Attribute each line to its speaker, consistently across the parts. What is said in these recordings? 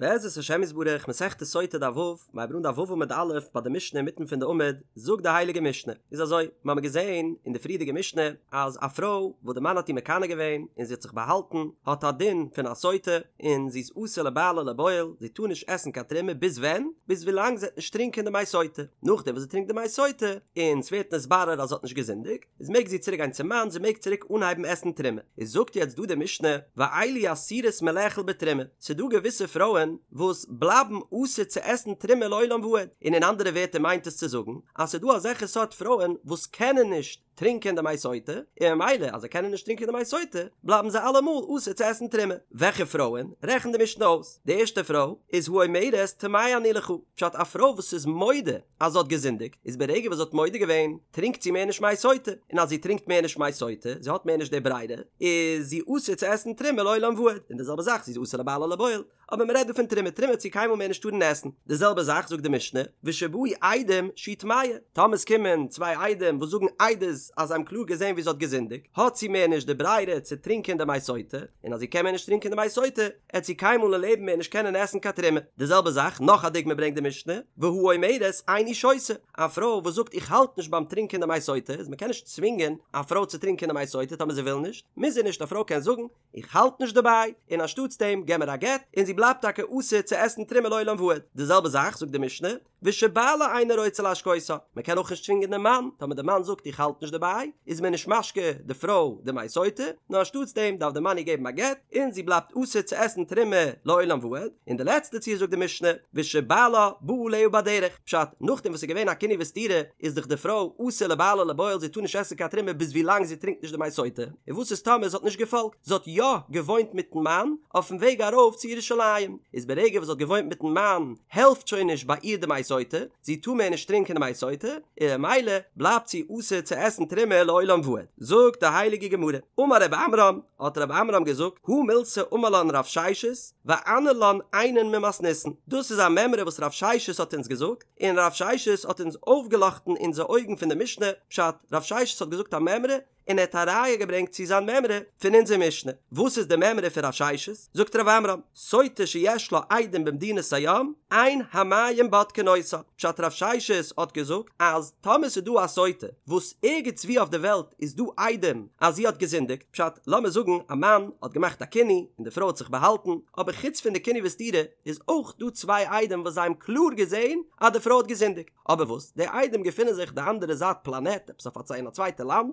Speaker 1: בעזרת השם יתברך, מסכת סוטה דף ו', מ'הייבט אן דף ו' עמוד א', ביי די משנה אינמיטן פון די עמוד, זאגט די הייליגע משנה, איז אזוי, מיר האבן געזען אין די פריערדיגע משנה, אז א פרוי וואס די מאן האט איר מקנא געווען און זי האט זיך באהאלטן, האט א דין פון א סוטה, און זי איז אסור לבעלה ולבועל, זי טאר נישט עסן קיין תרומה ביז ווען? ביז ווילאנג זי וועט נישט טרינקען די מי סוטה, נאכדעם וואס זי טרינקט די מי סוטה, און ס'ווערט נתברר אז זי האט נישט געזינדיגט, איז מעג זי צוריק גיין צום מאן, זי מעג צוריק אנהייבן עסן תרומה. איז זאגט יעצט דא די משנה, ואלו אסורות מלאכול בתרומה, ס'איז דא געוויסע פרויען וואס בלייבן אסור צו עסן תרומה לעולם ועד, און אין אנדערע ווערטער מיינט עס צו זאגן אז ס'איז דא אזעלכע סארט פרויען וואס קענען נישט טרינקען די מי סוטה, און ממילא אז זיי קענען נישט טרינקען די מי סוטה, בלייבן זיי אלעמאל אסור צו עסן תרומה. וועלכע פרויען? רעכנט די משנה אויס, די ערשטע פרוי איז האומרת טמאה אני לך, פשט א פרוי וואס איז מודה אז זי האט געזינדיגט, איז ברגע וואס זי האט מודה געווען, טרינקט זי מער נישט מי סוטה, און אז זי טרינקט מער נישט מי סוטה, זי האט מער נישט די ברירה, איז זי אסור צו עסן תרומה לעולם ועד, און די זעלבע זאך, זי איז אסור לבעלה ולבועל, אבער מען רעדט דא פון תרומה, תרומה וועט זי קיינמאל מער נישט טארן עסן, די זעלבע זאך זאגט די משנה, ושבאו עדים שהיא טמאה, טאמער עס קומען צוויי עדים וואס זאגן עדות אז זיי האבן קלאר געזען ווי זי האט געזינדיגט, האט זי מער נישט די ברירה צו טרינקען די מי סוטה, און אז זי קען מער נישט טרינקען די מי סוטה, עט זי קיינמאל אין לעבן מער נישט קענען עסן קיין תרומה. די זעלבע זאך, נאך א דוגמא ברענגט די משנה, והאומרת איני שותה, א פרוי וואס זאגט איך האלט נישט ביים טרינקען די מי סוטה, איז מ'קען נישט צווינגען א פרוי צו טרינקען די מי סוטה טאמער זי וויל נישט, מוז זי נישט, א פרוי קען זאגן איך האלט נישט דערביי, און אנשטאטס דעם געב מיר א גט, און זי בלייבט טאקע אסור צו עסן תרומה לעולם ועד. די זעלבע זאך זאגט די משנה, ושבעלה אינו רוצה להשקותה, מען קען אויך נישט צווינגען דעם מאן, טאמער דער מאן זאגט איך האלט נישט דערביי, איז מען נישט משקה די פרוי די מי סוטה, נאר אנשטאטס דעם דארף דער מאן איר געבן א גט, און זי בלייבט אסור צו עסן תרומה לעולם ועד, און די לעצטע ציור זאגט די משנה, ושבעלה בא עליה בדרך, פשט, נאכדעם וואס ס'איז געווען א קינוי וסתירה, איז דאך די פרוי אסור לבעלה ולבועל זי טאר נישט עסן קיין תרומה ביז ווי לאנג זי טרינקט נישט די מי סוטה, און וואס איז טאמער זי האט נישט געפאלגט, זי האט יא געוואוינט מיטן מאן אויפן וועג ארויף צו ירושלים, איז ברגע וואס זי האט געוואוינט מיטן מאן העלפט שוין נישט ביי איר די מי סוטה, זי טאר מער נישט טרינקען די מי סוטה, און ממילא בלייבט זי אסור צו עסן תרומה לעולם ועד. זאגט די הייליגע גמרא, אמר רב עמרם, האט רב עמרם געזאגט, הא מילתא אמר לן רב ששת, ואנהר לן עיינין ממתניתין, דאס איז א מימרא וואס רב ששת האט אונז געזאגט, און רב ששת האט אונז אויפגעלאכטן אונזער אויגן פון די משנה, פשט, רב ששת האט געזאגט א מימרא, און ער האט א ראיה געברענגט צו זיין מימרא פון אונזער משנה. וואס איז די מימרא פון רב ששת? זאגט רב עמרם, סוטה שיש לה עדים במדינת הים, אין המים בודקין אותה. פשט רב ששת האט געזאגט אז טאמער ס'איז דא א סוטה וואס ערגעץ וואו אויף די וועלט איז דא עדים אז זי האט געזינדיגט, פשט, לאמיר זאגן א מאן האט געמאכט א קינוי און די פרוי האט זיך באהאלטן, אבער חוץ פון די קינוי וסתירה איז אויך דא צוויי עדים וואס זיי האבן קלאר געזען אז די פרוי האט געזינדיגט. אבער וואס, די עדים געפינען זיך די אנדערע זייט פלאנעט, עפעס אויף א אין א צווייטע לאנד,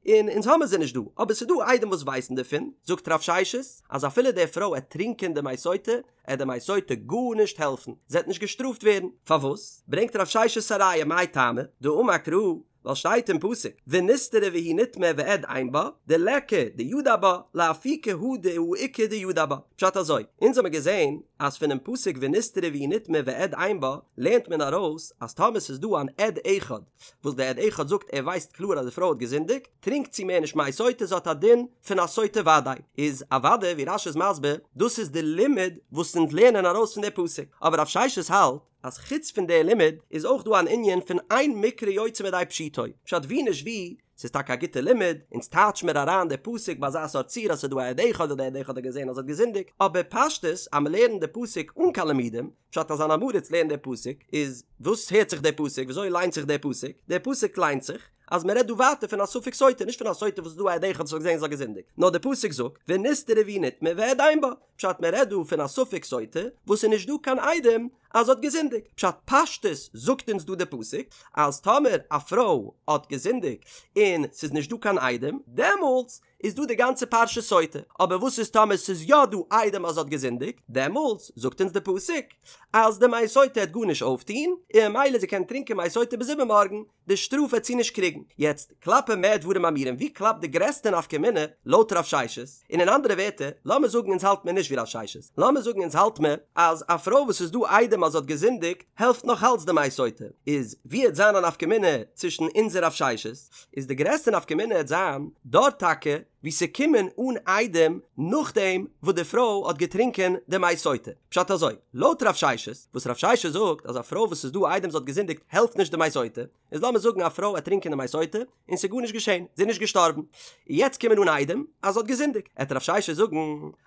Speaker 1: און אונז האמיר זיי נישט דא, אבער ס'איז דא עדים וואס ווייסן דערפון, זאגט רב ששת, אז אפילו די פרוי עט טרינקען די מי סוטה, עט די מי סוטה גארנישט העלפן, זי עט נישט געשטראפט ווערן, פארוואס? ברענגט רב ששת א ראיה מאי טעמא, דאמר קרא, ווייל שטייט אין פסוק, ונסתרה והיא נטמאה ועד אין בה, דליכא דידע בה, לאפוקי הא דהאיכא דידע בה. פשט אזוי, אונז האמיר געזען אז פונעם פסוק ונסתרה והיא נטמאה ועד אין בה, לערנט מען ארויס אז טאמער ס'איז דא אן עד אחד, וואס דער עד אחד זאגט ער ווייסט קלאר אז די פרוי האט געזינדיגט, טרינקט זי מער נישט מי סוטה, זי האט א דין פון א סוטה וודאי. איז אוודאי ווי רש"י איז מסביר, דאס איז די לימוד וואס אונז לערנען ארויס פון די פסוק, אבער רב ששת האלט, אז חוץ פון די לימוד איז אויך דא אן ענין פון אין מקרא יוצא מידי פשוטו, פשט ווי נישט ווי, ס'איז טאקע א גוטע לימוד, אונז טייטש מיר אריין די פסוק ביי אזא סארט ציור אז ס'איז דא א עד אחד און די עד אחד האט געזען אז זי האט געזינדיגט, אבער פשטות אז מ'לערנט די פסוק אן קיין לימודים, פשט אז אן עם הארץ לערנט די פסוק, איז וואס הערט זיך די פסוק, וויאזוי ליינט זיך די פסוק, די פסוק ליינט זיך אז מ'רעדט דא ווייטער פון א ספק סוטה, נישט פון א סוטה וואס איז דא א עד אחד וואס האט געזען אז זי האט געזינדיגט, נאר די פסוק זאגט ונסתרה והיא נטמאה ועד אין בה, פשט מען רעדט דא פון א ספק סוטה וואס איז נישט דא קיין עדים אז זי האט געזינדיגט, פשט פשטות זאגט אונז דא די פסוק אז טאמער א פרוי האט געזינדיגט און ס'איז נישט דא קיין עדים דעמאלטס איז דא די גאנצע פרשה סוטה, אבער וואס איז טאמער ס'איז יא דא עדים אז זי האט געזינדיגט דעמאלטס זאגט אונז די פסוק אז די מי סוטה העט גארנישט אויפטוהן און ממילא זי קען טרינקען מי סוטה ביז איבערמארגן, די שטראף וועט זי נישט קריגן. יעצט, כלפי מה דברים אמורים, ווי קלאפט די גרעסטע נפקא מינה לויט רב ששת? און אין אנדערע ווערטער, לאמיר זאגן אונז האלט מיר נישט ווי רב ששת, לאמיר זאגן אונז האלט מיר אז א פרוי וואס איז דא עדים אז זי האט געזינדיגט, העלפט נאך אלץ די מי סוטה, איז ווי העט זיין א נפקא מינה צווישן אונז און רב ששת? איז די גרעסטע נפקא מינה העט זיין דארט טאקע. וואו ס'קומען אן עדים נאכדעם וואס די פרוי האט געטרינקען די מי סוטה. פשט אזוי, לויט רב ששת, וואס רב ששת זאגט אז א פרוי וואס ס'איז דא עדים זי האט געזינדיגט העלפט נישט די מי סוטה, איז לאמיר זאגן א פרוי וועט טרינקען די מי סוטה און ס'איז גארנישט געשען, זי איז נישט געשטארבן, יעצט קומען אן עדים אז זי האט געזינדיגט, עט רב ששת זאגן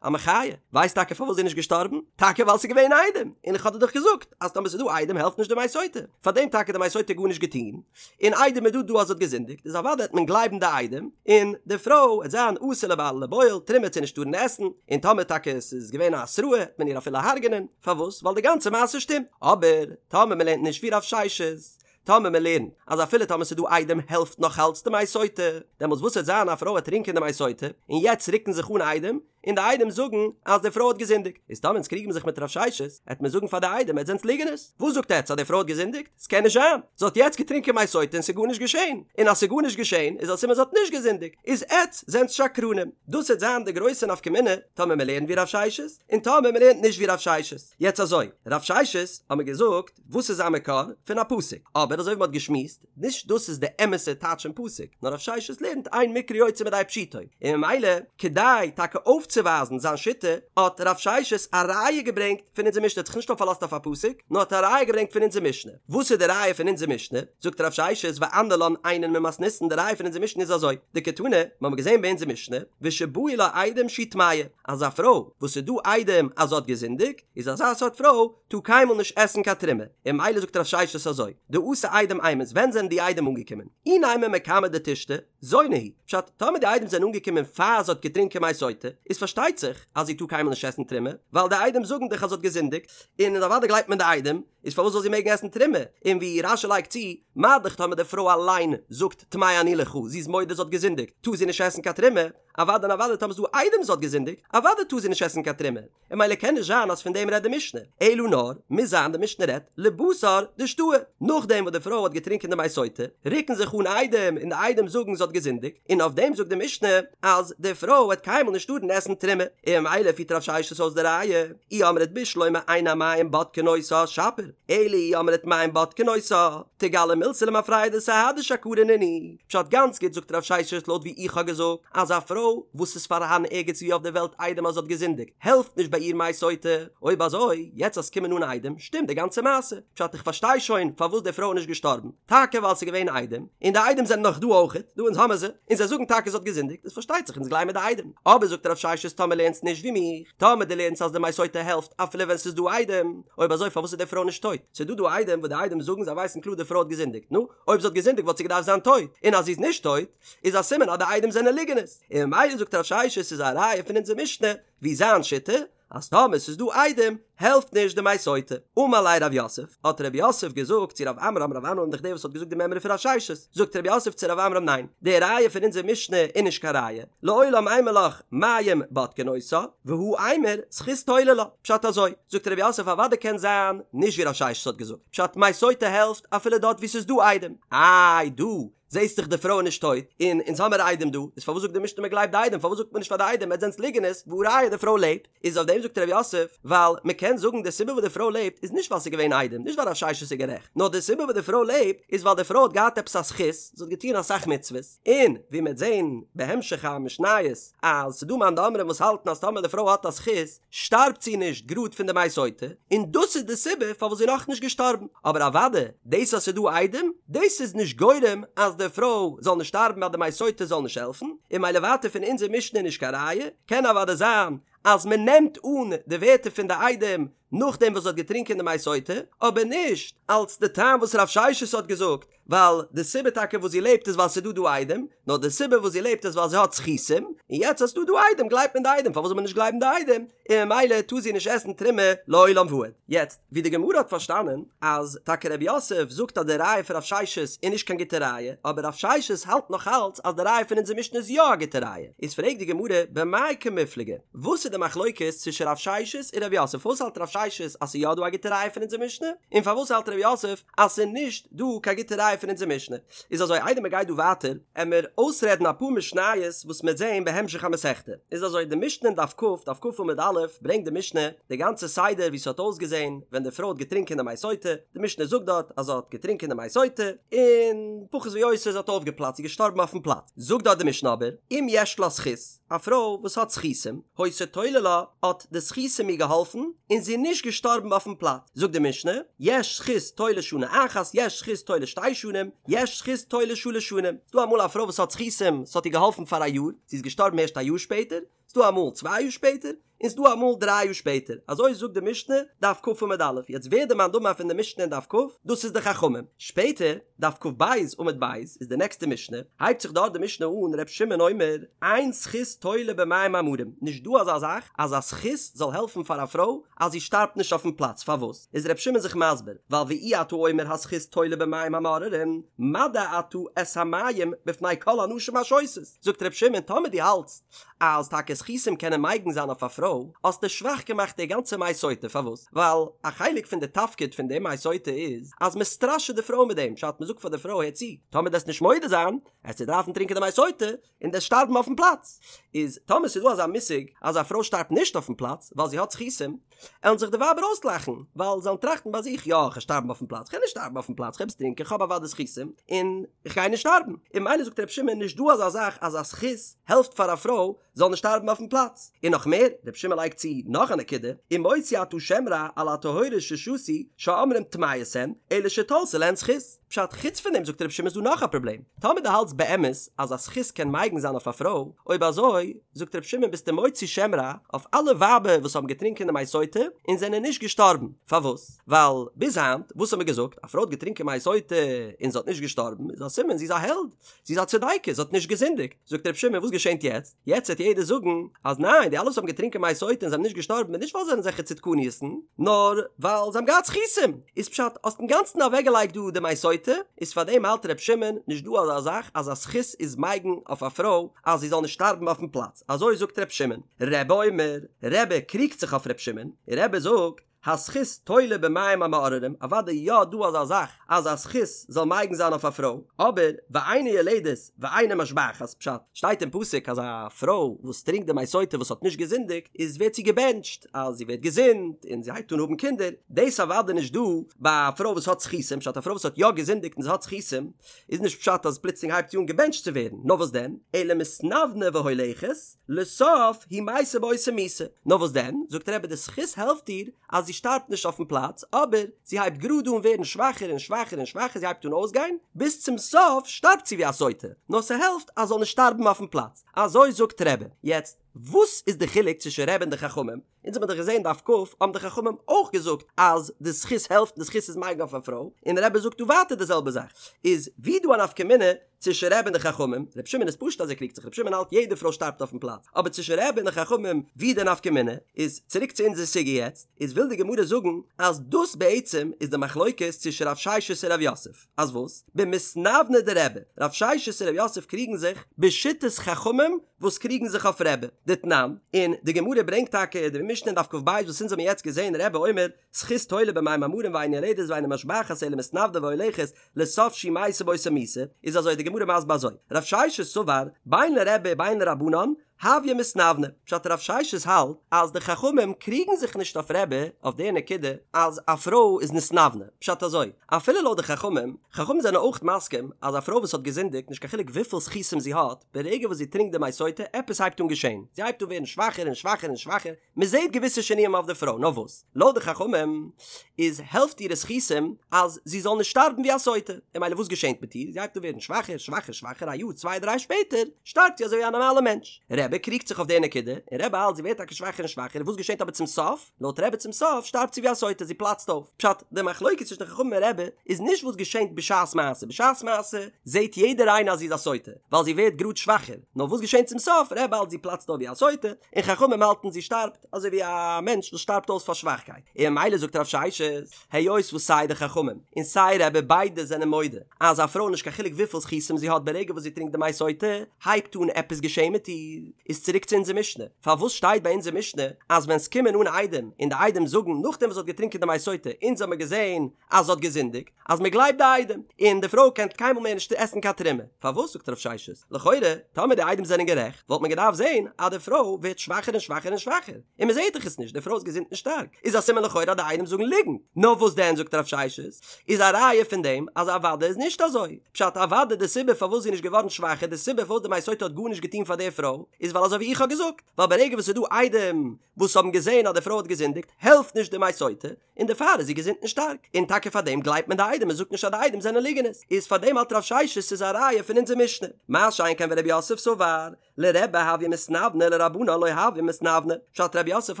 Speaker 1: א מחיה, ווייסט טאקע פארוואס זי איז נישט געשטארבן? טאקע ווייל ס'איז געווען עדים, און איך האב דיר דאך געזאגט אז טאמער ס'איז דא עדים העלפט נישט די מי סוטה, פארדעם טאקע די מי סוטה גארנישט געטון, און עדים איז דא דא אז זי האט געזינדיגט, איז אוודאי העט מען גלייבן די עדים, און די פרוי העט זיין אסור לבעל ולבועל, תרומה העט זי נישט טארן עסן, און טאמער טאקע ס'איז געווען א התראה העט מען איר אפילו הרג'נען, פארוואס? ווייל די גאנצע מעשה שטימט, אבער טאמער מ'לערנט נישט ווי רב ששת, טאמער מען לערנט אז אפילו טאמער ס'איז דא עדים העלפט נאך אלץ די מי סוטה, דעמאלטס וואס וועט זיין א פרוי וועט טרינקען די מי סוטה, און יעצט רוקן זיך אן עדים, און די עדים זאגן אז די פרוי האט געזינדיגט, איז טאמער אונז קריגן מיר זיך מיט רב ששת, העט מען זאגן פאר די עדים עטס זענטס ליגענערס, וואס זאגט עטס אז די פרוי האט געזינדיגט? ס'קען נישט זיין, זי האט יעצט געטרינקען מי סוטה און ס'איז גארנישט געשען, און אז ס'איז גארנישט געשען איז א סימן זי האט נישט געזינדיגט, איז עטס זענטס שקרנים. דאס העט זיין די גרויסע נפקא מינה טאמער מען לערנט ווי רב ששת, און טאמער מען לערנט נישט ווי רב ששת. יעצט אזוי, רב ששת האט מען געזאגט, וואס איז זיין מקור? פון א פסוק. אבער אזוי ווי מ'האט געשמועסט, נישט דאס איז די אמת'ע טייטש פון פסוק, נאר רב ששת לערנט אין מקרא יוצא מידי פשוטו, און ממילא כדי טאקע אויפצואווייזן זיין שיטה, האט רב ששת א ראיה געברענגט פון אונזער משנה, האט זיך נישט נאר פארלאזט אויף א פסוק, נאר האט א ראיה געברענגט פון אונזער משנה. וואס איז די ראיה פון אונזער משנה? זאגט רב ששת ואנא לן אינן ממתניתין, די ראיה פון אונזער משנה איז אזוי, דקתני, מ'האמיר געזען ביי אונזער משנה, ושבאו לה עדים שהיא טמאה, אז א פרוי וואס ס'איז דא עדים אז זי האט געזינדיגט, איז אזא סארט פרוי טאר קיינמאל נישט עסן קיין תרומה, און ממילא זאגט רב ששת אזוי, דאתו עדים אימת, ווען זענען די עדים אנגעקומען? אי נימא מקמי דתשתי, זונה היא, פשט, טאמער די עדים זענען אנגעקומען פאר זי האט געטרינקען מי סוטה, איז פארשטייט זיך אז זי טאר קיינמאל נישט עסן תרומה, ווייל די עדים זאגן דאך אז זי האט געזינדיגט, און אוודאי גלייבט מען די עדים, איז פארוואס זאל זי מעגן עסן תרומה? און ווי רש"י לייגט צו, מה דאך טאמער די פרוי אליין זאגט טמאה אני לך, זי איז מודה זי האט געזינדיגט, טאר זי נישט עסן קיין תרומה, אוודאי און אוודאי טאמער ס'איז דא עדים זי האט געזינדיגט, אוודאי טאר זי נישט עסן קיין תרומה. און ממילא קען נישט זיין אז פון דעם רעדט די משנה, אלא נאר, מוז זיין די משנה רעדט לבתר דשתאי, נאכדעם וואס די פרוי האט געטרינקען די מי סוטה, רוקן זיך אן עדים און די עדים זאגן זי האט געזינדיגט, און אויף דעם זאגט די משנה אז די פרוי וועט קיינמאל נישט טארן עסן תרומה, און ממילא פירט רב ששת אויס די ראיה, אי אמרת בשלמא אין המים בודקין אותה שפיר, אלא אי אמרת מים בודקין אותה, תיגלי מילתא למפרע דסהדי שקרי נינהו. פשט גאנץ גוט זאגט רב ששת לויט ווי איך האב געזאגט אז א פרוי וואס איז פארהאן ערגעץ ווי אויף די וועלט עדים אז זי האט געזינדיגט העלפט נישט ביי איר מי סוטה, אויב אזוי יעצט אז ס'קומען אן עדים שטימט די גאנצע מעשה, פשט איך פארשטיי שוין פארוואס די פרוי איז נישט געשטארבן, טאקע ווייל ס'איז געווען עדים, און די עדים זענען נאך דא אויכעט, דא אונז האמער זיי, און זיי זאגן טאקע זי האט געזינדיגט, איז פארשטייט זיך אונז גלייבן די עדים, אבער זאגט רב ששת טאמער לערנסט נישט ווי מיך, טאמער דו לערנסט אז די מי סוטה העלפט אפילו ווען ס'איז דא עדים, אויב אזוי פארוואס איז די פרוי נישט טויט? ס'איז דא דא עדים וואס די עדים זאגן זיי ווייסן קלאר די פרוי האט געזינדיגט, נו, אויב זי האט געזינדיגט וואלט זי געדארפט זיין טויט, און אז זי איז נישט טויט, איז א סימן אז די עדים זענען ליגענערס, און ממילא זאגט רב ששת ס'איז א ראיה פון אונזער משנה, ווי זיין שיטה, אז טאמער ס'איז דא עדים, העלפט נישט די מי סוטה. אמר ליה רב יוסף, האט רב יוסף געזאגט צו רב עמרם, רב עמרם איז דאך דער וואס האט געזאגט די מימרא פון רב ששת, זאגט רב יוסף צו רב עמרם ניין, די ראיה פון אונזער משנה איז נישט קיין ראיה, לעולם אימא לך מים בודקין אותה, והא אימור זכות תולה לה, פשט אזוי, זאגט רב יוסף אוודאי קען זיין נישט ווי רב ששת האט געזאגט, פשט מי סוטה העלפט אפילו דארט ווי ס'איז דא עדים, איי דא זעהסט דאך די פרוי איז נישט טויט, און אונז האמער עדים דא, איז פארוואס זאגט די משנה מ'גלייבט די עדים, פארוואס זאגט מען נישט פאר די עדים עטס זענטס ליגענערס, והא ראיה די פרוי לעבט, איז אויף דעם זאגט רב יוסף, ווייל מ'קען זאגן די סיבה וואס די פרוי לעבט איז נישט ווייל ס'איז געווען עדים, נישט ווייל רב ששת איז גערעכט, נאר די סיבה וואס די פרוי לעבט איז ווייל די פרוי האט געהאט עפעס א זכות, זי האט געטון אסאך מצוות, און ווי מ'עט זעהן בהמשך המשניות אז ס'דא מאן דאמרים וואס האלטן אז טאמער די פרוי האט א זכות שטארבט זי נישט גראד פון די מי סוטה, און דאס איז די סיבה פארוואס זי איז נאכנישט געשטארבן, אבער אוודאי דאס אז ס'איז דא עדים דאס איז נישט גורם אז די פרוי זאל נישט שטארבן אז די מי סוטה זאל נישט העלפן, און ממילא ווייטער פון אונזער משנה איז נישט קיין ראיה, קען אוודאי זיין אז מ'נעמט אן די ווערטער פון די עדים נאכדעם וואס זי האט געטרינקען די מי סוטה, אבער נישט אלס די טעם וואס רב ששת האט געזאגט, ווייל די סיבה טאקע וואס זי לעבט איז ווייל ס'איז דא דא עדים, נאר די סיבה וואס זי לעבט איז ווייל זי האט זכותים, און יעצט אז ס'איז דא דא עדים גלייבט מען די עדים, פארוואס זאל מען נישט גלייבן די עדים, און ממילא טאר זי נישט עסן תרומה לעולם ועד. יעצט, ווי די גמרא האט פארשטאנען, אז טאקע רב יוסף זאגט אז די ראיה פון רב ששת איז נישט קיין גוטע ראיה, אבער רב ששת האלט נאך אלץ אז די ראיה פון אונזער משנה איז יא א גוטע ראיה, איז פרעגט די גמרא במאי קמיפלגי, וואס איז די מחלוקת צווישן רב ששת און רב יוסף? פארוואס האלט רב ששת אז ס'איז יא דא א גוטע ראיה פון אונזער משנה, און פארוואס האלט ר' יוסף אז ס'איז נישט דא קיין גוטע ראיה פון אונזער משנה? איז אזוי איידער מ'גייט דא ווייטער עמער אויסרעדן אפאר משניות וואס מ'עט זעהן בהמשך המסכתא. איז אזוי די משנה אין דף כ, דף כ עמוד א', ברענגט די משנה די גאנצע סדר ווי ס'האט אויסגעזעהן ווען די פרוי האט געטרינקען די מי סוטה, די משנה זאגט דארט אז זי האט געטרינקען די מי סוטה און פחות ויותר זי האט אויפגעפלאצט זי איז געשטארבן אויפן פלאץ, זאגט דארט די משנה אבער אם יש לה זכות, א פרוי וואס האט זכותים, היתה תולה לה, האט די זכותים איר געהאלפן, און זי איז נישט געשטארבן אויפן פלאץ. זאגט די משנה, יש זכות תולה שנה אחת, יש זכות תולה שתי שנים, יש זכות תולה שלש שנים. ס'דא אמאל א פרוי וואס האט זכותים, ס'האט איר געהאלפן פאר א יאר, זי איז געשטארבן ערשט א יאר שפעטער, ס'דא אמאל צוויי יאר שפעטער, און ס'דא אמאל דריי יאר שפעטער. אזוי זאגט די משנה, דף כ עמוד א'. יעצט ווער די מאן דאמר פון די משנה אין דף כ? דאס איז די חכמים. שפעטער, דף כ"ב עמוד ב' איז די נעקסטע משנה, הייבט זיך דארט די משנה אן ר' שמעון אומר אין זכות תולה במים המרים, נישט דא אזא זאך אז א זכות זאל העלפן פאר א פרוי אז זי שטארבט נישט אויפן פלאץ, פארוואס איז ר' שמעון זיך מסביר, ווייל ואי אתה אומר הזכות תולה במים המאררים, מדע אתה את המים בפני כל הנשים השותות, זאגט ר' שמעון טאמער דו האלטסט אז טאקע זכותים קענען מגין זיין אויף א פרוי, האסטו שוואך געמאכט די גאנצע מי סוטה, פארוואס? ווייל א חלק פון די תפקיד פון די מי סוטה איז אז מען סטראשעט די פרוי מיט דעם, פשט מען זאגט פאר די פרוי הער צו, טאמער דו וועסט נישט מודה זיין, עסטו דארפן טרינקען די מי סוטה, און דו וועסט שטארבן אויפן פלאץ. איז טאמער ס'איז דא אזא מושג אז א פרוי שטארבט נישט אויפן פלאץ ווייל זי האט זכותים, עלן זיך די ווייבער אויסלאכן, ווייל זיי עלן טראכטן ביי זיך, יא, כ'גיי שטארבן אויפן פלאץ, כ'גיי נישט שטארבן אויפן פלאץ, כ'העב עס טרינקען, כ'האב אוודאי זכותים, און כ'גיי נישט שטארבן. און ממילא זאגט רבי שמעון, נישט דא אזא זאך אז א זכות העלפט פאר א פרוי זאל נישט שטארבן אויפן פלאץ. און נאך מער, רבי שמעון לייגט צו נאך א נקודה, ומוציא אתה שם רע על הטהורות ששתו שאומרים טמאות הן, אלא שתלתה להן זכות. פשט, חוץ פון דעם זאגט רבי שמעון איז דא נאך א פראבלעם, טאמער דו האלטסט באמת אז א זכות קען מגין זיין אויף א פרוי, אויב אזוי, זאגט רבי שמעון ביסטו מוציא שם רע אויף אלע ווייבער וואס האבן געטרינקען די מי סוטה און זענען נישט געשטארבן, פארוואס? ווייל ביז היינט וואס האט מען געזאגט, א פרוי האט געטרינקען מי סוטה און זי האט נישט געשטארבן איז א סימן זי איז א העלד, זי איז א צדיקת, זי האט נישט געזינדיגט. זאגט רבי שמעון וואס געשענט יעצט? יעצט וועט יעדער זאגן אז ניין די אלע וואס האבן געטרינקען מי סוטה און זיי האבן נישט געשטארבן איז נישט ווייל זיי זענען אזעלכע צדקניות'ן נאר ווייל זיי האבן געהאט זכותים איז פשט האסט אינגאנצן אוועקגעלייגט דא די מי סוטה איז פארדעם האלט רבי שמעון נישט דא אזא זאך אז א זכות איז מגין אויף א פרוי אז זי זאל נישט שטארבן אויפן פלאץ אזוי זאגט רבי שמעון רבי אומר רבי קריגט זיך אויף רבי שמעון און רבי זאגט הזכות תולה במים המאררים, אוודאי יא דא אזא זאך אז א זכות זאל מגין זיין אויף א פרוי, אבער ואינה יולדת ואינה משבחת, פשט, שטייט אין פסוק אז א פרוי וואס טרינקט די מי סוטה וואס האט נישט געזינדיגט איז ווערט זי געבענטשט אז זי ווערט געזונט און זי הייבט אן האבן קינדער, דאס אוודאי נישט דא ביי א פרוי וואס האט זכותים, פשט א פרוי וואס האט יא געזינדיגט און זי האט זכותים איז נישט פשט אז פלוצלינג הייבט זי אן געבענטשט צו ווערן, נאר וואס דען, אלא מתנוונה והולכת, לסוף היא מתה באותה מיתה. נאר וואס דען, זאגט רבי די זכות העלפט איר אז זי שטארבט נישט אויפן פלאץ, אבער זי הייבט גראד אן ווערן שוואכער און שוואכער און שוואכער זי הייבט אן אויסגיין, ביז צום סוף שטארבט זי ווי א סוטה, נאר ס'העלפט אז זאל נישט שטארבן אויפן פלאץ. אזוי זאגט רבי. יעצט, וואס איז די חילוק צווישן רבי און די חכמים? אונז האבן דאך געזען דף כ, האבן די חכמים אויך געזאגט אז די זכות העלפט און די זכות איז מגין אויף א פרוי, און רבי זאגט דא ווייטער די זעלבע זאך, איז ווי דא א נפקא מינה צווישן רבי און די חכמים, רבי שמעון איז פשוט אז ער קריגט זיך, רבי שמעון האלט יעדע פרוי שטארבט אויפן פלאץ, אבער צווישן רבי און די חכמים ווי די נפקא מינה, איז צוריק צו אונזער סוגיא יעצט, איז וויל די גמרא זאגן אז דאס בעצם איז די מחלוקת צווישן רב ששת און רב יוסף. אז וואס? במתנוונה דרבי, רב ששת און רב יוסף קריגן זיך בשיטת חכמים וואס קריגן זיך אויף רבי, דתנן, און די גמרא ברענגט טאקע די משנה אין דף כ"ב וואס אונז האבן יעצט געזען רבי אומר זכות תולה במים המרים ואינה יולדת ואינה משבחת אלא מתנוונה והולכת לסוף שהיא מתה באותה מיתה, איז אזוי די גמרא מסביר אזוי, רב ששת סבר בין לרבי בין לרבנן הויא מתנוונה, פשט רב ששת האלט אז די חכמים קריגן זיך נישט אויף רבי אויף די נקודה אז א פרוי איז נתנוונה, פשט אזוי, אפילו לויט די חכמים, חכמים זענען אויך מסכים אז א פרוי וואס האט געזינדיגט נישט קיין חילוק וויפיל זכותים זי האט, ברגע וואס זי טרינקט די מי סוטה עפעס הייבט אן געשען, זי הייבט אן ווערן שוואכער און שוואכער און שוואכער, מען זעט געוויסע שינויים אויף די פרוי, נאר וואס? לויט די חכמים איז העלפט אירע זכותים אז זי זאל נישט שטארבן ווי א סוטה, און ממילא וואס געשענט מיט איר? זי הייבט אן ווערן שוואכער, שוואכער, שוואכער, א יאר צוויי דריי שפעטער שטארבט זי אזוי ווי א נארמאלע מענטש. רבי קריגט זיך אויף די נקודה, און רבי האלט זי ווערט טאקע שוואכער און שוואכער, וואס געשענט אבער צום סוף? לויט רבי צום סוף שטארבט זי ווי א סוטה, זי פלאצט אויף. פשט, די מחלוקת צווישן די חכמים און רבי איז נישט וואס געשענט בשעת מעשה, בשעת מעשה זעט יעדער איינער אז זי איז א סוטה, ווייל זי ווערט גראד שוואכער, נאר וואס געשענט צום סוף? רבי האלט זי פלאצט אויף ווי א סוטה, און חכמים האלטן זי שטארבט אזוי ווי א מענטש וואס שטארבט אויס פאר שוואכקייט, און ממילא זאגט רב ששת, היות וואס סיי די חכמים און סיי רבי ביידע זענען מודה אז א פרוי נישט קיין חילוק וויפיל זכותים זי האט ברגע וואס זי טרינקט די מי סוטה הייבט אן עפעס געשען מיט איר. איז צוריק צו אונזער משנה, פארוואס שטייט ביי אונזער משנה אז ווען ס'קומען אן עדים און די עדים זאגן נאכדעם וואס זי האט געטרינקען די מי סוטה אונז האמיר געזען אז זי האט געזינדיגט, אז מען גלייבט די עדים, און די פרוי קען קיינמאל מער נישט עסן קיין תרומה. פארוואס זאגט רב ששת, לכאורה, טאמער די עדים זענען גערעכט, וואלט מען געדארפט זען אז די פרוי ווערט שוואכער און שוואכער און שוואכער, און מען זעט דאך עס נישט, די פרוי איז געזונט און שטארק, איז א סימן לכאורה אז די עדים זאגן ליגנט. נאר וואס דען זאגט רב ששת, איז א ראיה פון דעם אז אוודאי איז נישט אזוי. פשט אוודאי די סיבה פארוואס זי איז נישט געווארן שוואכער, די סיבה פארוואס די מי סוטה האט גארנישט געטון פאר די פרוי, איז ווייל אזוי ווי איך האב געזאגט, ווייל ברגע וואס ס'איז דא עדים וואס האבן געזען אז די פרוי האט געזינדיגט, העלפט נישט די מי סוטה, און דערפאר איז זי געזונט און שטארק, און טאקע פאר דעם גלייבט מען די עדים, מען זאגט נישט אז די עדים זענען ליגענערס, איז פאר דעם האלט רב ששת ס'איז א ראיה פון אונזער משנה, מה שאין כן ורב יוסף סבר, לרבי הויא מתנוונה לרבנן לא הויא מתנוונה, פשט רב יוסף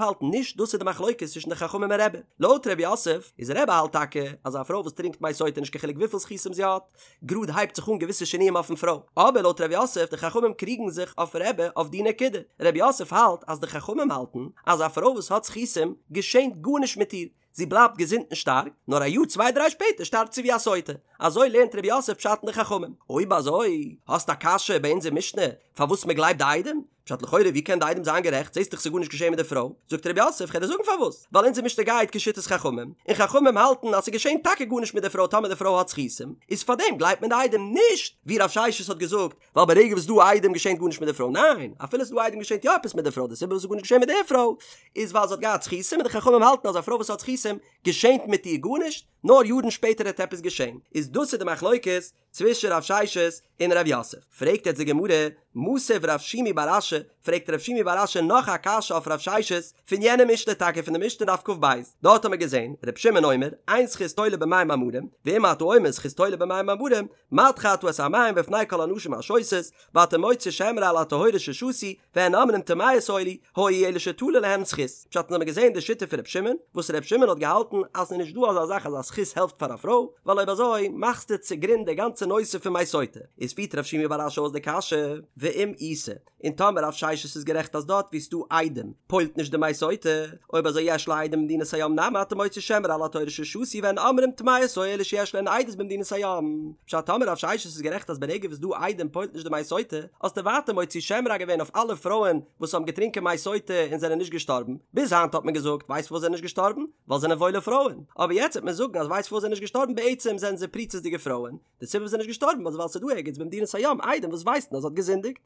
Speaker 1: האלט נישט דאס איז די מחלוקת צווישן די חכמים און רבי, לויט רב יוסף איז רבי האלט טאקע אז א פרוי וואס טרינקט מי סוטה נישט קיין חילוק וויפיל זכותים זי האט, גראד הייבט זיך אן געוויסע שינויים אויפן פרוי, אבער לויט ר' יוסף די חכמים קריגן זיך אויף רבי אויף די נקודה, ר' יוסף האלט אז די חכמים האלטן אז א פרוי וואס האט זכותים געשענט גארנישט מיט איר, זי בלייבט געזונט און שטארק, נאר א יאר צוויי דריי שפעטער שטארבט זי ווי א סוטה, אזוי לערנט ר' יוסף פשט אין די חכמים. אויב אזוי האסט א קשיא ביי אונזער משנה פארוואס מען גלייבט די עדים? פשט לכאורה ווי קען די עדים זיין גערעכט זעסט דאך ס'איז גארנישט געשען מיט די פרוי, זאגט ר' יוסף כ'על דיר זאגן פארוואס, ווייל אונזער משנה גייט כשיטת חכמים, און חכמים האלטן אז ס'געשען טאקע גארנישט מיט די פרוי טאמער די פרוי האט זכותים, איז פארדעם גלייבט מען די עדים נישט ווי רב ששת האט געזאגט, ווייל ברגע וואס ס'דא עדים געשענט גארנישט מיט די פרוי, ניין אפילו ס'דא עדים געשענט יא עפעס מיט די פרוי, די סיבה וואס ס'איז גארנישט געשען מיט די פרוי איז ווייל זי האט געהאט זכותים און די חכמים האלטן אז א פרוי וואס האט זכותים געשענט מיט איר גארנישט, נאר יארן שפעטער העט עפעס געשען, איז דאס איז די מחלוקת צווישן רב ששת און רב יוסף. פרעגט יעצט די גמרא, מתיב רב שימי בר אשי, פרעגט רב שימי בר אשי נאך א קשיא אויף רב ששת, פון יענע משנה טאקע פון די משנה דף כ"ב, דארט האמיר געזען, ר' שמעון אומר, אין זכות תולה במים המרים, ואם אתה אומר זכות תולה במים המרים, מדחה אתה את המים בפני כל הנשים השותות, ואתה מוציא שם רע על הטהורות ששתו, והן אומרים טמאות היו היו אלא שתלה להן זכות. פשט אונז האמיר געזען די שיטה פון ר' שמעון, וואס ר' שמעון האט געהאלטן אז ס'איז נישט דא אזא זאך אז א זכות העלפט פאר א פרוי, ווייל אויב אזוי מאכסטו צוגרונד די גאנצע נושא פון מי סוטה. איז פירט רב שימי בר אשי אויס די קשיא, ואם איתא, און טאמער רב ששת איז גערעכט אז דארט וואו ס'דא עדים פועל'ט נישט די מי סוטה, אויב אזוי יש לה עדים במדינת הים נמי אתה מוציא שם רע על הטהורות ששתו והן אומרים טמאות היו אלא שיש להן עדות במדינת הים. פשט טאמער רב ששת איז גערעכט אז ברגע וואס ס'דא עדים פועל'ט נישט די מי סוטה, האסטו ווייטער מוציא שם רע געווען אויף אלע פרויען וואס האבן געטרינקען מי סוטה און זענען נישט געשטארבן, ביז היינט האט מען געזאגט ווייסט פארוואס זענען נישט געשטארבן? ווייל זענען וואוילע פרויען, אבער יעצט וועט מען זאגן אז ווייסט פארוואס זענען נישט געשטארבן בעצם זענען זיי פריצות'דיגע פרויען, די סיבה וואס זענען נישט געשטארבן איז ווייל ס'איז דא ערגעץ במדינת הים עדים וואס ווייסן אז זי האט געזינדיגט.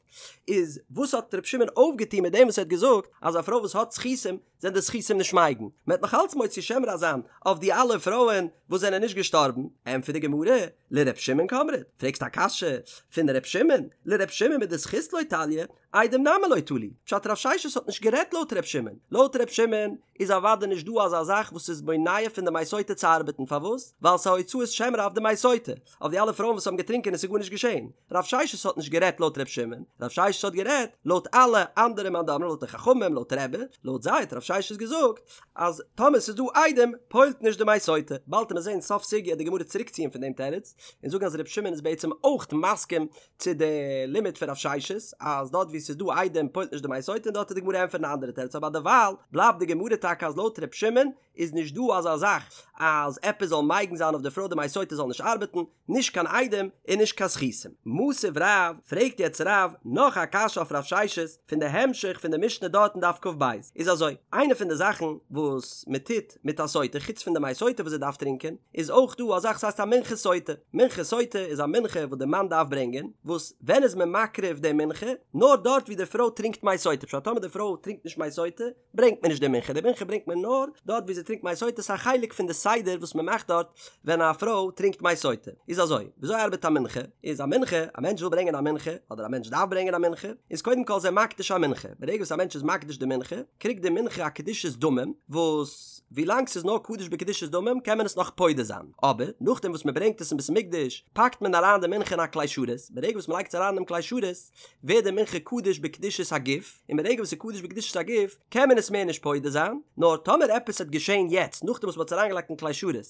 Speaker 1: איז וואס האט ר' שמעון אויפגעטון מיט דעם וואס ער האט געזאגט אז א פרוי וואס האט זכותים זענען די זכותים נישט מגין? מען וועט נאך אלץ מוציא שם רע זיין אויף די אלע פרויען וואס זענען נישט געשטארבן? ענטפערט די גמרא, לר' שמעון קאמרת, פרעגסט א קשיא פון ר' שמעון? לר' שמעון מדזכות לא תליא, עדים נמי לא תלו, פשט רב ששת האט נישט גערעדט לויט ר' שמעון, לויט ר' שמעון איז אוודאי נישט דא אזא זאך וואס איז מונע פון די מי סוטה צו ארבעטן, פארוואס? ווייל ס'איז הוצאת שם רע אויף די מי סוטה, אויף די אלע פרויען וואס האבן געטרינקען און ס'איז גארנישט געשען. רב ששת האט נישט גערעדט לויט ר' שמעון, רב ששת האט גערעדט לויט אלע אנדערע מאן דאמרים לויט די חכמים לויט רבי, לויט זיי האט רב ששת געזאגט אז טאמער ס'איז דא עדים פועל'ט נישט די מי סוטה, באלד וועט מען זען סוף סוגיא די גמרא צוריקציען פון דעם תירוץ און זאגן אז ר' שמעון איז בעצם אויך מסכים צו די לימוד פון רב ששת אז דארט וואו ס'איז דא עדים פועל'ט נישט די מי סוטה און דארט וועט די גמרא ענטפערן א אנדערע תירוץ אבער דערווייל בלייבט די גמרא טאקע אז לויט ר' שמעון איז נישט דא אזא זאך אז עפעס זאל מגין זיין אויף די פרוי די מי סוטה זאל נישט ארבעטן, נישט קיין עדים און נישט קיין זכותים. מתיב רב, פרעגט יעצט רב נאך א קשיא אויף רב ששת פון די המשך פון די משנה דארט אין דף כ"ב, איז אזוי, איינע פון די זאכן וואס מען טוט מיט א סוטה חוץ פון די מי סוטה וואס זי דארף טרינקען, איז אויך דא א זאך וואס הייסט א מנחת סוטה, מנחת סוטה איז א מנחה וואס די מאן דארף ברענגען, וואס ווען איז מען מקריב די מנחה? נאר דארט ווי די פרוי טרינקט מי סוטה, פשט טאמער די פרוי טרינקט נישט מי סוטה, ברענגט מען נישט די מנחה, די מנחה ברענגט מען נאר דארט ווי זי טרינקט מי סוטה, ס'איז א חלק פון די סדר וואס מען מאכט דארט ווען א פרוי טרינקט מי סוטה. איז אזוי, וויאזוי ארבעט א מנחה? איז א מנחה, א מענטש וויל ברענגען א מנחה, אדער א מענטש דארף ברענגען א מנחה, איז קודם כל איז ער מקדיש א מנחה, ברגע וואס א מענטש איז מקדיש די מנחה, קריגט די מנחה א קדושת דמים, וואס ווילאנג ס'איז נאר קדוש בקדושת דמים קען מען עס נאך פודה זיין, אבער נאכדעם וואס מען ברענגט עס אין בית המקדש, פאקט מען אריין די מנחה אין א כלי שרת, ברגע וואס מען לייגט עס אריין אינעם כלי שרת, ווערט די מנחה קדוש בקדושת הגוף, און ברגע וואס ס'איז קדוש בקדושת הגוף קען מען עס מער נישט פודה זיין, נאר טאמער עפעס העט געשען יעצט נאכדעם וואס מ'האט עס אריינגעלייגט אין כלי שרת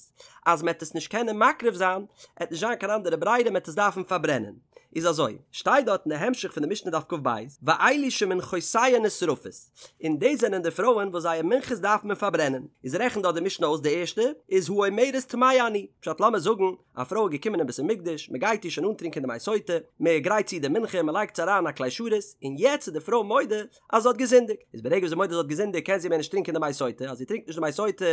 Speaker 1: אז מ'העט עס נישט קענען מקריב זיין, העט נישט זיין קיין אנדערע ברירה מ'העט עס דארפן פארברענען. איז אזוי, שטייט דארט אין די המשך פון די משנה דף כ"ב, ואלו שמנחותיהן נשרפות, און דאס זענען די פרויען וואס זייער מנחות דארף מען פארברענען, איז. איז רעכנט דארט די משנה אויס די ערשטע איז האומרת טמאה אני, פשט לאמיר זאגן א פרוי איז געקומען אין בית המקדש מען גייט איר שוין אנטרינקען די מי סוטה, מען גרייט צו די מנחה מען לייגט עס אריין א כלי שרת, און יעצט איז די פרוי מודה אז זי האט געזינדיגט, איז ברגע וואס זי מודה זי האט געזינדיגט קען זי מער נישט טרינקען די מי סוטה, אז זי טרינקט נישט די מי סוטה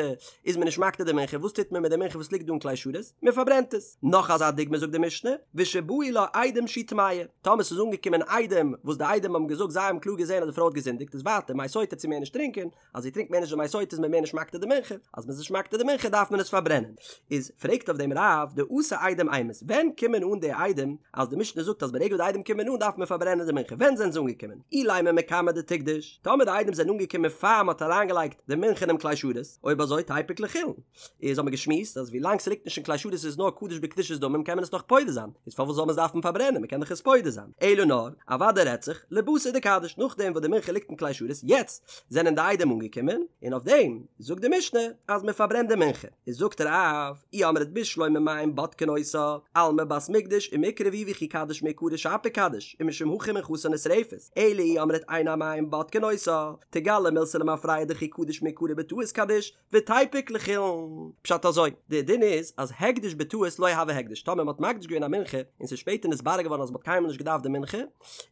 Speaker 1: איז מען נישט מקטיר די מנחה, וואס טוט מען מיט די מנחה וואס ליגט דא אין כלי שרת? מען פארברענט עס. נאך אזא דוגמא זאגט די משנה, ושבאו לה עדים שהיא טמאה, טאמער ס'איז אנגעקומען עדים וואס די עדים האבן געזאגט זיי האבן קלאר געזען אז די פרוי האט געזינדיגט איז ווייטער מי סוטה וועט זי מער נישט טרינקען, אז זי טרינקט מער נישט די מי סוטה איז מען מער נישט מקטיר די מנחה, אז מ'איז נישט מקטיר די מנחה דארף מען עס פארברענען. איז פרעגט אויף דעם רב דאתו עדים אימת, ווען קומען אן די עדים אז די משנה זאגט אז ברגע וואס די עדים קומען אן דארף מען פארברענען די מנחה, ווען זענען זיי אנגעקומען? אילימא מקמי דתקדוש, טאמער די עדים זענען אנגעקומען פאר מ'האט אריינגעלייגט די מנחה אינעם כלי שרת, אויב אזוי תיפוק לחולין. איז האבן מיר געשמועסט אז ווילאנג ס'ליגט נישט אין כלי שרת איז נאר קדוש בקדושת דמים קען מען עס נאך פודה זיין, איז פארוואס זאל מען עס דארפן פארברענען מ'קען דאך עס פודה זיין, אלא נאר אוודאי רעדט זיך לבתר דקדיש נאכדעם וואס די מנחה ליגט אין כלי שרת יעצט זענען די עדים אנגעקומען און אויף דעם זאגט די משנה אז מ'פארברענט די מנחה, איז זאגט רב אי אמרת בשלמא מים בודקין אותה, אלמא בת מקדש ומעיקרא היא וכי קדיש מעיקרא שפיר קדיש ומשום הכי מנחתה נשרפת, אלא אי אמרת אין המים בודקין אותה, תיגלי מילתא למפרע דכי קדיש מעיקרא בטעות קדיש, ותיפוק לחולין. פשט אזוי, די דין איז אז הקדש בטעות לא הוי הקדש, טאמער מ'האט מקדיש געווען א מנחה און ס'איז שפעטער נתברר געווארן אז מ'האט קיינמאל נישט געדארפט די מנחה,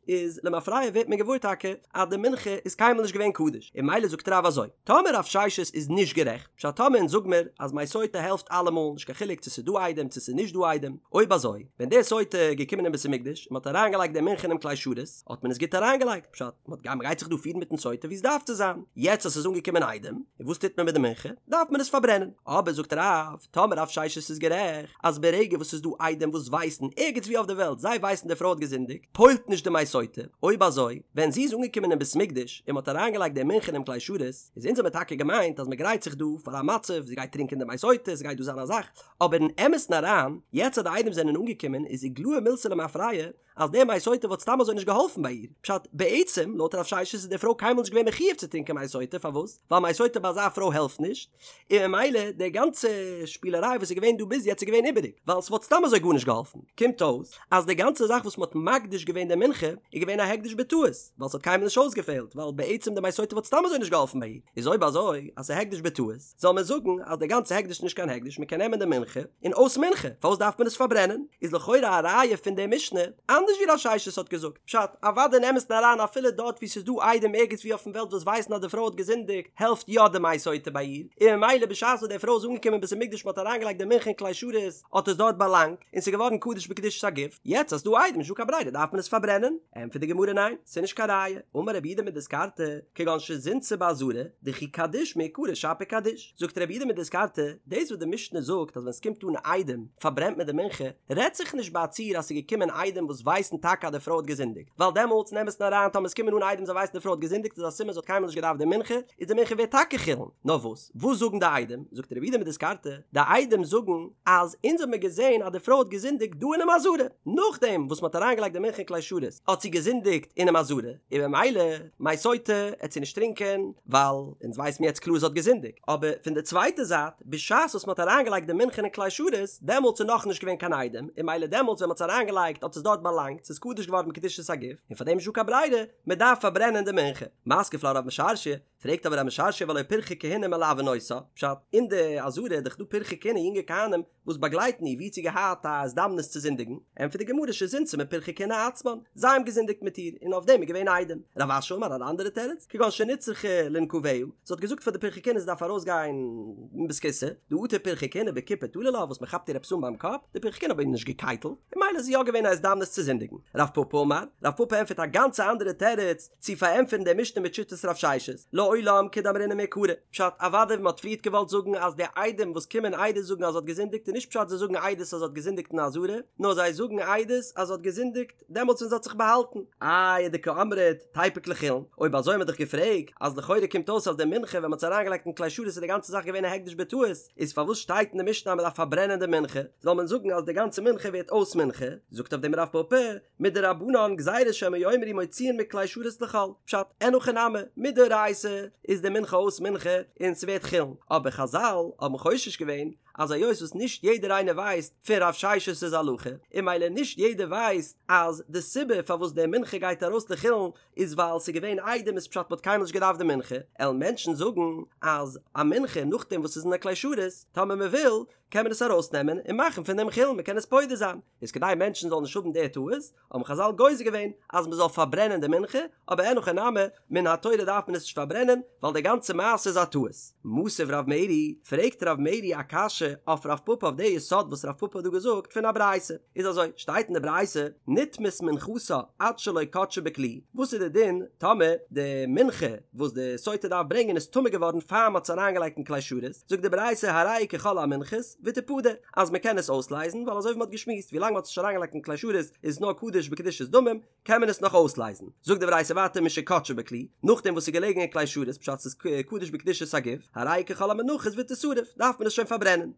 Speaker 1: איז למפרע ווערט מען געוואויר טאקע אז די מנחה איז קיינמאל נישט געווען קדוש, און ממילא זאגט רב אזוי, טאמער רב ששת איז נישט גערעכט, פשט טאמער אונז זאג מיר אז מי סוטה העלפט אלעמאל, נישט קיין חילוק צו ס'איז דא עדים צו ס'איז נישט דא עדים, אויב אזוי, ווען די סוטה איז געקומען אין בית המקדש און מ'האט אריינגעלייגט די מנחה אינעם כלי שרת, האט מען עס גוט אריינגעלייגט, פשט, מ'האט מ'גייט זיך דא פירן מיטן סוטה ווי עס דארף צו זיין, יעצט אז ס'איז אנגעקומען עדים, און וואס טוט מען מיט די מנחה? דארף מען עס פארברענען. אבער זאגט רב, טאמער רב ששת איז גערעכט, אז ברגע וואס ס'איז דא עדים וואס ווייסן, ערגעץ ווי אויף די וועלט, זיי ווייסן די פרוי האט געזינדיגט, פועל'ט נישט די מי סוטה, אויב אזוי, ווען זי איז אנגעקומען אין בית מקדש, און מ'האט אריינגעלייגט די מנחה אינעם כלי שרת, איז אונז האמיר טאקע געמיינט אז מ'גרייט זיך דא פאר א מצב, זי גייט טרינקען די מי סוטה, ס'גייט דא זיין א זאך, אבער אין אמת'ן אריין, יעצט אז די עדים זענען אנגעקומען, איז איגלאי מילתא למפרע, אז די מי סוטה וואלט סתם אזוי נישט געהאלפן ביי איר, פשט, בעצם, לויט רב ששת איז די פרוי קיינמאל נישט געווען מחיוב צו טרינקען מי סוטה, פארוואס? ווייל מי סוטה ביי אזא פרוי העלפט נישט, און ממילא די גאנצע שפילעריי וואס איז געווען דא ביז יעצט איז געווען איבעריג, ווייל ס'וואלט סתם אזוי גארנישט געהאלפן. קומט אויס, אז די גאנצע זאך וואס מ'האט מקדיש געווען די מנחה, איז געווען א הקדש בטעות, ווייל ס'האט קיינמאל נישט אויסגעפעלט, ווייל בעצם די מי סוטה וואלט סתם אזוי נישט געהאלפן ביי איר, איז אויב אזוי, אז ס'איז הקדש בטעות, זאל מען זאגן אז די גאנצע הקדש איז נישט קיין הקדש, מען קען נעמען די מנחה און אויס מנחה, פארוואס דארף מען עס פארברענען? איז לכאורה א ראיה פון די משנה אנדערש ווי רב ששת האט געזאגט, פשט, אוודאי אין אמת'ן אריין אפילו דארט וואו ס'איז דא עדים ערגעץ וואו אויפן וועלט וואס ווייסן אז די פרוי האט געזינדיגט העלפט יא די מי סוטה ביי איר, און ממילא בשעת וואס די פרוי איז אנגעקומען אין בית המקדש מען האט אריינגעלייגט די מנחה אין כלי שרת האט עס דארט באלאנגט און ס'איז געווארן קדוש בקדושת הגוף, יעצט אז ס'דא עדים נישט דא קיין ברירה דארף מען עס פארברענען, ענטפערט די גמרא ניין, ס'איז נישט קיין ראיה, אמר רב יהודה מדיסקרתא, כגון שזינתה בעזרה, דכי קדיש מעיקרא שפיר קדיש. זאגט רב יהודה מדיסקרתא, דאס וואס די משנה זאגט אז ווען ס'קומט אן עדים פארברענט מען די מנחה, רעדט זיך נישט ביי א ציור אז ס'איז געקומען עדים וואס ווייסן טאקע אז די פרוי האט געזינדיגט, ווייל דעמאלטס אין אמת'ן אריין טאמער ס'קומען אן עדים זיי ווייסן די פרוי האט געזינדיגט איז א סימן זי האט קיינמאל נישט געדארפט די מנחה, איז די מנחה ווערט טאקע חולין. נאר וואס? וואס זאגן די עדים? זאגט רב יהודה מדיסקרתא, די עדים זאגן אז אונז האבן מיר געזען אז די פרוי האט געזינדיגט דא אינעם עזרה, נאכדעם וואס מ'האט אריינגעלייגט די מנחה אין כלי שרת האט זי געזינדיגט אינעם עזרה, און במילא מי סוטה עט זי נישט טרינקען ווייל אונז ווייסן מיר יעצט קלאר זי האט געזינדיגט, אבער פון די צווייטע זייט בשעת וואס מ'האט אריינגעלייגט די מנחה אין כלי שרת דעמאלטס איז נאכנישט געווען קיין עדים, און במילא דעמאלטס ווען מ'האט עס אריינגעלייגט האט עס דארט באלאנגט, ס'איז קדוש געווארן בקדושת הגוף, און פארדעם איז נישטא קיין ברירה, מ'דארף פארברענען די מנחה. מתקיף לה רב משרשיא, פרעגט אבער רב משרשיא והלא פרחי כהונה מלווין אותה, פשט, אין די עזרה איז דאך דא פרחי כהונה יונגע כהנים וואס באגלייטן איר ווי האט זי געהאט א הזדמנות צו זינדיגן, ענטפערט די גמרא שזינתה מפרחי כהונה עצמן, זיי האבן געזינדיגט מיט איר און אויף דעם איז געווען עדים. רב אשי אמר אן אנדערע תירוץ, כגון שנצרכה לנקביה, זי האט געזאגט פאר די פרחי כהונה זי דארף ארויס גיין אין בית הכסא, דאטו פרחי כהונה בכיפה תלו לה וואס מען כאפט איר עפעס אן ביים קאפ, די פרחי כהונה האבן איר נישט געקייטלט, און ממילא איז יא געווען א הזדמנות צו זינדיגן. רב פפא אמר, רב פפא ענטפערט א גאנצע אנדערע תירוץ, צו פארענטפערן די משנה מיט שיטת רב ששת, לעולם כדאמרינן מעיקרא. פשט, אוודאי ווי מ'האט פריערט געוואלט זאגן אז די עדים וואס קומען עדות זאגן אז זי האט געזינדיגט איז נישט פשט זיי זאגן עדות אז זי האט געזינדיגט אין עזרה, נאר זיי זאגן עדות אז זי האט געזינדיגט דעמאלטס ווען זי האט זיך באהאלטן. איי ודקאמרת תיפוק לחולין, אויב אזוי האט מען דאך געפרעגט אז לכאורה קומט אויס אז די מנחה ווען מ'האט עס אריינגעלייגט אין כלי שרת איז די גאנצע זאך געווען א הקדש בטעות, איז פארוואס שטייט אין די משנה אז מ'דארף פארברענען די מנחה? זאל מען זאגן אז די גאנצע מנחה ווערט אויס מנחה? זאגט אויף דעם רב פפא. מדרבנן גזירה שמא יאמרו מוציאין מכלי שרת לחול, פשט, אין הכי נמי, מדאורייתא איז די מנחה אויס מנחה און ס'ווערט חולין, אבער חזל האבן חושש געווען אז היות וואס נישט יעדער איינער ווייסט פון רב ששת'ס הלכה, און ממילא נישט יעדער ווייסט אז די סיבה פארוואס די מנחה גייט ארויס לחולין איז ווייל ס'איז געווען עדים איז פשט מ'האט קיינמאל נישט געדארפט די מנחה, עלן מענטשן זאגן אז א מנחה נאכדעם וואס ס'איז אין א כלי שרת, טאמער מ'וויל, קען מען עס ארויסנעמען און מאכן פון דעם חולין, מ'קען עס פודה זיין, איז כדי מענטשן זאלן נישט האבן די טעות, האבן חזל גוזר געווען אז מ'זאל פארברענען די מנחה, אבער אין הכי נמי, מן התורה דארף מען עס נישט פארברענען, ווייל די גאנצע מעשה איז א טעות. מתיב רב מרי, פרעגט רב מרי א קשיא אויף רב פפא אויף די יסוד וואס רב פפא האט דא געזאגט פון א ברייתא. איז אזוי, שטייט אין די ברייתא, נטמאת מנחתה עד שלא קדשה בכלי, וואס איז די דין טאמער די מנחה וואס די סוטה דארף ברענגען איז טמא געווארן פאר מ'האט עס אריינגעלייגט אין כלי שרת, זאגט די ברייתא הרי היא ככל המנחות ותפדה, אז מ'קען עס אויסלייזן ווייל אזוי ווי מ'האט געשמועסט ווילאנג מ'האט עס נישט אריינגעלייגט אין כלי שרת איז עס נאר קדוש בקדושת דמים, קען מען עס נאך אויסלייזן. זאגט די ברייתא ווייטער משקדשה בכלי, נאכדעם וואס ס'איז געלעגן אין כלי שרת פשט ס'איז קדוש בקדושת הגוף, הרי היא ככל המנחות ותשרף, דארף מען עס שוין פארברענען.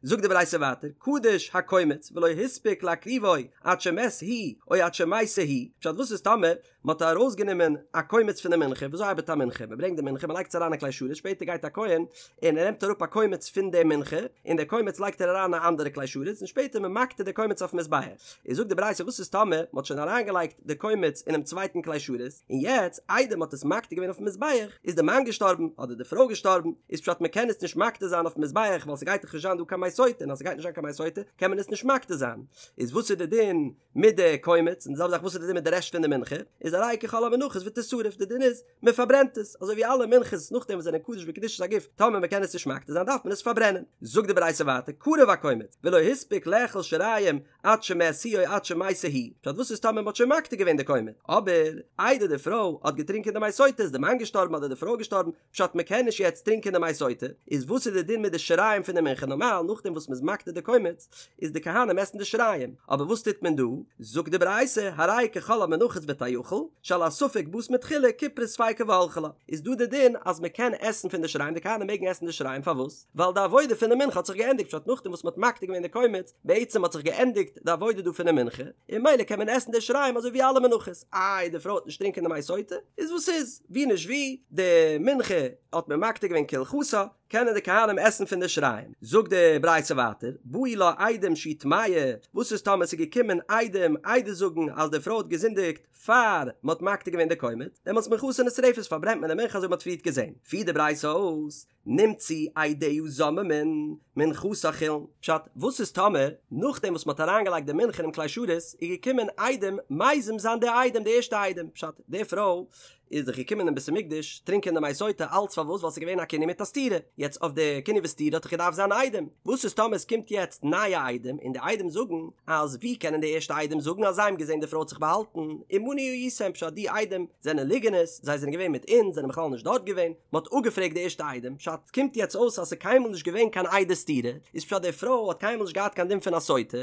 Speaker 1: זאגט די ברייתא ווייטער, קדש הקומץ ולא הספיק להקריבו עד שמת הוא או עד שמתה היא, פשט וואס איז טאמער מ'האט ארויסגענומען א קומץ פון די מנחה, וויאזוי ארבעט א מנחה? מ'ברענגט די מנחה מ'לייגט עס אריין אין כלי שרת, שפעטער גייט א כהן און ער נעמט אראפ א קומץ פון די מנחה, און די קומץ לייגט ער אריין אין א אנדערע כלי שרת, און שפעטער מען מקטיר די קומץ אויפן מזבח. איז זאגט די ברייתא וואס איז טאמער מען האט שוין אריינגעלייגט די קומץ אינעם צווייטן כלי שרת, און יעצט איידער מען האט עס מקטיר געווען אויפן מזבח, איז די מאן געשטארבן, אדער די פרוי געשטארבן, איז פשט מען קען עס נישט מקטיר זיין אויפן מזבח ווייל ס'גייט דאך נישט זיין דא קיין מי סוטה, און אז ס'גייט נישט זיין קיין מי סוטה קען מען עס נישט מקטיר זיין. איז וואס איז די דין מיט די קומץ, און די זעלבע זאך וואס איז די דין מיט די רעשט פון די מנחה, איז הרי היא ככל המנחות ותשרף, די דין איז, מען פארברענט עס, אזוי ווי אלע מנחות נאכדעם וואס זענען קדוש בקדושת הגוף, טאמער מען קען עס נישט מקטיר זיין דארף מען עס פארברענען. זאגט די ברייתא ווייטער, קרב הקומץ, ולא הספיק לאכול שיריים עד שמת הוא או עד שמתה היא, פשט וואס איז טאמער מען האט שוין מקטיר געווען די קומץ, אבער איידער די פרוי האט געטרינקען די מי סוטה איז די מאן געשטארבן אדער די פרוי געשטארבן, פשט מען קען נישט יעצט טרינקען די מי סוטה, איז וואס איז די דין מיט די שיריים פון די מנחה נארמאל נאכדעם וואס מען איז מקטיר די קומץ איז די כהנים עסן די שיריים, אבער וואס טוט מען דא? זאגט די ברייתא הרי היא ככל המנחות ותאכל, שעל הספק באת מתחילה כיפרה ספיקה והלכה לה, איז דא די דין אז מען קען עסן פון די שיריים די כהנים מעגן עסן די שיריים פארוואס? ווייל די עבודה פון די מנחה האט זיך געענדיגט פשט נאכדעם וואס מען האט מקטיר געווען די קומץ בעצם האט זיך געענדיגט די עבודה דא פון די מנחה און ממילא קען מען עסן די שיריים אזוי ווי אלע מנחות איי די פרוי וועט נישט טרינקען די מי סוטה איז וואס איז ווי נישט ווי די מנחה האט מען מקטיר געווען כהלכתה קענען די כהנים עסן פון די שיריים זאגט די ברייתא ווייטער באו לה עדים שהיא טמאה וואס איז טאמער ס'איז געקומען עדים עדות זאגן אז די פרוי האט געזינדיגט פאר מען האט מקטיר געווען די קומץ דעמאלטס מנחתה נשרפת פארברענט מען די מנחה אזוי ווי מען האט פריערט געזען פירט די ברייתא אויס נמצאו עדיה זוממין, מנחתה חולין. פשט, וואס איז טאמער, נאכדעם וואס מ'האט אריינגעלייגט די מנחה אינעם כלי שרת, איז געקומען עדים מזים זיין די עדים, די ערשטע עדים, פשט, די פרוי איז דאך געקומען אין בית המקדש טרינקען די מי סוטה, אלץ פארוואס? ווייל ס'איז געווען א קינוי מיט א סתירה, יעצט אויף די קינוי וסתירה האט דאך געדארפט זיין עדים, וואס איז טאמער עס קומט יעצט נייע עדים און די עדים זאגן אז ווי קענען די ערשטע עדים זאגן אז זיי האבן געזען די פרוי האט זיך באהאלטן, עמנו הייתם, פשט די עדים זענען ליגענערס, זיי זענען געווען מיט אונז, זענען בכלל נישט דארט געווען, מען האט אפגעפרעגט די ערשטע עדים, פשט, קומט יעצט אויס אז ס'איז קיינמאל נישט געווען קיין עדי סתירה, איז פשט די פרוי האט קיינמאל נישט געהאט קיין דין פון א סוטה,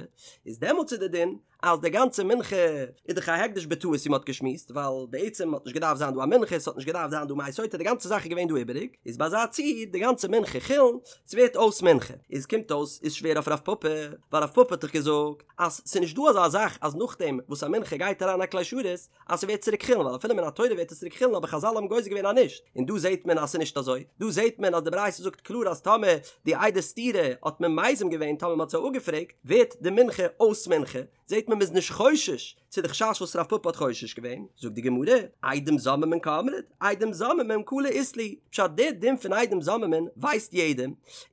Speaker 1: איז דעמאלטס איז די דין אז די גאנצע מנחה איז דאך א הקדש בטעות ווי מען האט געשמועסט, ווייל בעצם האט נישט געדארפט זיין דא א מנחה, ס'האט נישט געדארפט זיין דא מי סוטה, די גאנצע זאך איז געווען דא איבעריג, איז ביי אזא ציור די גאנצע מנחה חולין, ס'ווערט אויס מנחה, איז קומט אויס איז שווער אויף רב פפא, ווייל רב פפא האט דאך געזאגט אז ס'איז נישט דא אזא זאך אז נאכדעם וואס א מנחה גייט אריין א כלי שרת אז ס'ווערט צוריק חולין, ווייל אפילו מן התורה ווערט עס צוריק חולין אבער חזל האבן גוזר געווען אז נישט, און דא זעהט מען אז ס'איז נישט אזוי, דא זעהט מען אז די ברייתא זאגט קלאר אז טאמער די עדי סתירה האט מען מזים געווען טאמער מ'האט זיי אפגעפרעגט ווערט די מנחה אויס מנחה, זעהט מען מ'איז נישט חושש צו די חשש וואס רב פפא האט חושש געווען, זאגט די גמרא, עדים זוממין קאמרת, עדים זוממין קלא אית להו, פשט די דין פון עדים זוממין ווייסט יעדער,